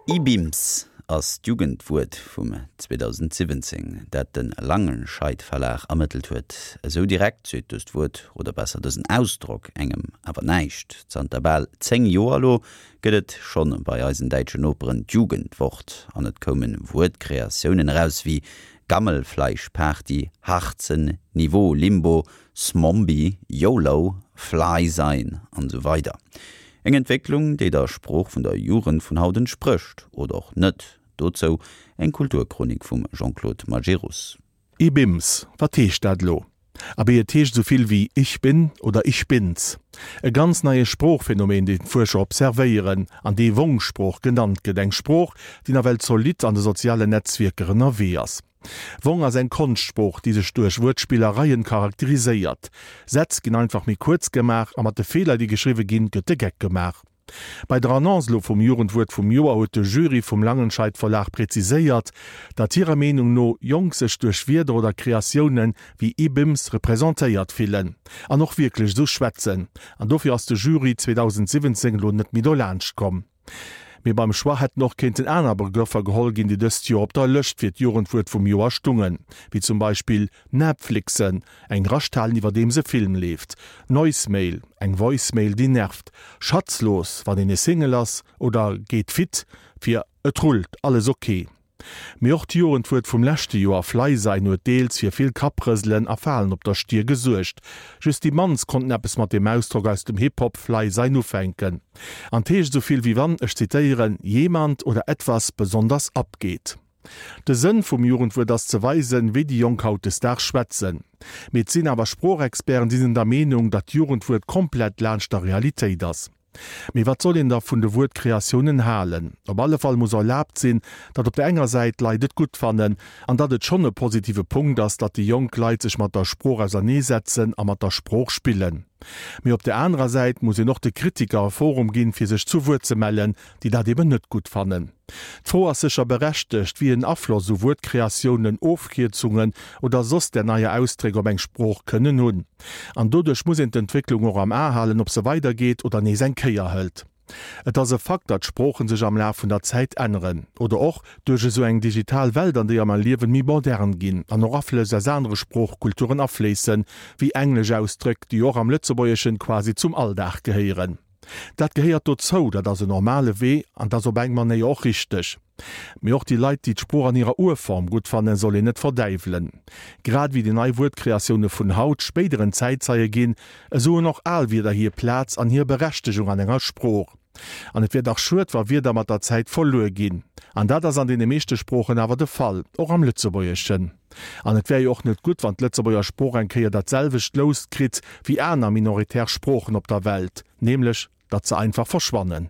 Ibims ass d'Jugendwuert vum 2017, dat de Langenscheidt Verlag ermëttelt huet. Esou direkt seet dëst Wuert, oder besser dësen Ausdrock, engem awer näischt. Zanter bal 10 Joer elo gëtt et schonn bei eisen däitschen Noperen d'Jugendwort an et koume Wuertkreatiounen eraus wéi Gammelfleischparty, Harzen, Niveau, Limbo, Smombie, YOLO, Fly sein an esou weider. Eng Entwécklung, déi der Sprooch vun der Jugend vun haut entsprécht, oder och net. Dozou eng Kulturchronik vum Jean-Claude Majerus. Ibims, wat heescht dat elo? Abee, et heescht esou vill wéi Ich bin oder Ich bin's. E ganz neie Sproochphänomen, deen d'Fuerscher observéieren an dee Wong-Sprooch genannt gëtt, eng Sprooch, déi nawell zolidd an de sozialen Netzwierker ënnerwee ass. Wong ass eng Konschtsprooch, déi sech duerch Wuertspillereien charakteriséiert. Sätz ginn einfach méi kuerz gemaach a mat de Feeler, déi geschriwwe ginn, gëtt de Geck gemaach. Bei der Annonce elo vum Jugendwuert vum Joer huet de Jury vum Langenscheidt Verlag präziséiert, datt hirer Meenung no Jonk sech duerch Wierder oder Kreatioune wéi Ibims representéiert fillen an och wierklech esou schwätzen. An dofir ass de Jury 2017 elo net méi dolaanscht komm. Mee beim Choix hätten och kéinten aner Begrëffer geholl ginn, déi dëst Joer op der Lëscht fir d'Jugendwuert vum Joer stungen, wéi zum Beispill Netflixen, eng Rascht halen iwwerdeems e Film leeft, Noisemail, eng Voicemail déi nervt, Schatzlos, wann een e Single ass, oder Geet fit, fir Et rullt, alles ok. Mee och d'Jugendwuert vum leschte Joer, Fly sein, huet deels fir vill Kapprëselen a Falen op der Stier gesuergt. Just déi mannst konnten eppes mat deem Ausdrock aus dem Hip-Hop Fly sein ufänken. An 't heescht esou vill wéi wann, ech zitéieren, jemand oder etwas besonders abgeht. De Sënn vum Jugendwuert ass ze weisen, wéi déi Jonk hautdesdaags schwätzen. Mee et sinn awer Sproochexperten, déi sinn der Meenung, datt d'Jugendwuert komplett laanscht der Realitéit ass. Mee wat soll een da vun de Wuertkreatiounen halen? Op alle Fall muss erlaabt sinn, datt op der enger Säit d'Leit et gutt fannen, an datt et schonn e positive Punkt ass, datt déi jonk Leit sech mat der Sprooch auserneesetzen a mat der Sprooch spillen. Mee op der anerer Säit muss een och de Kritiker e Forum ginn, fir sech zu Wuert ze mellen, déi dat eben net gutt fannen. D'Fro ass sécher berechtegt, wéi en Afloss esou Wuertkreatiounen, Ofkierzungen oder soss där neier Ausdréck op eng Sprooch kënnen hunn. An doduerch muss een d'Entwécklung och am A halen, ob se weidergeet oder nees eng Kéier hëlt. Et ass e Fakt, datt Sproochen sech am Laf vun der Zäit änneren. Oder och duerch esou eng digital Welt, an déier mer liewen, méi modern ginn an och Aflëss aus anere Sproochkulturen afléissen, wéi englesch Ausdréck, déi och am Lëtzebuergeschen quasi zum Alldag gehéieren. Dat gehéiert dozou, dat ass en normale Wee an 't ass op eng Manéier och richteg. Mee och déi Leit, déi d'Sprooch an hirer Urform gutt fannen, soll een net verdäiwelen. Grad ewéi déi nei Wuertkreatioune vun haut spéideren Zäitzeie ginn, esou hunn och al Wierder hir Plaz an hir Berechtegung an enger Sprooch. An et wier dach schued, wa Wierder mat der Zäit verluer ginn. An dat ass an deene meeschte Sproochen awer de Fall, och am Lëtzebuergeschen. An et wär jo och net gutt, wann d'Lëtzebuerger Sprooch eng Kéier dat selwecht Lous kritt wéi aner minoritär Sproochen op der Welt, nämlech datt se einfach verschwannen.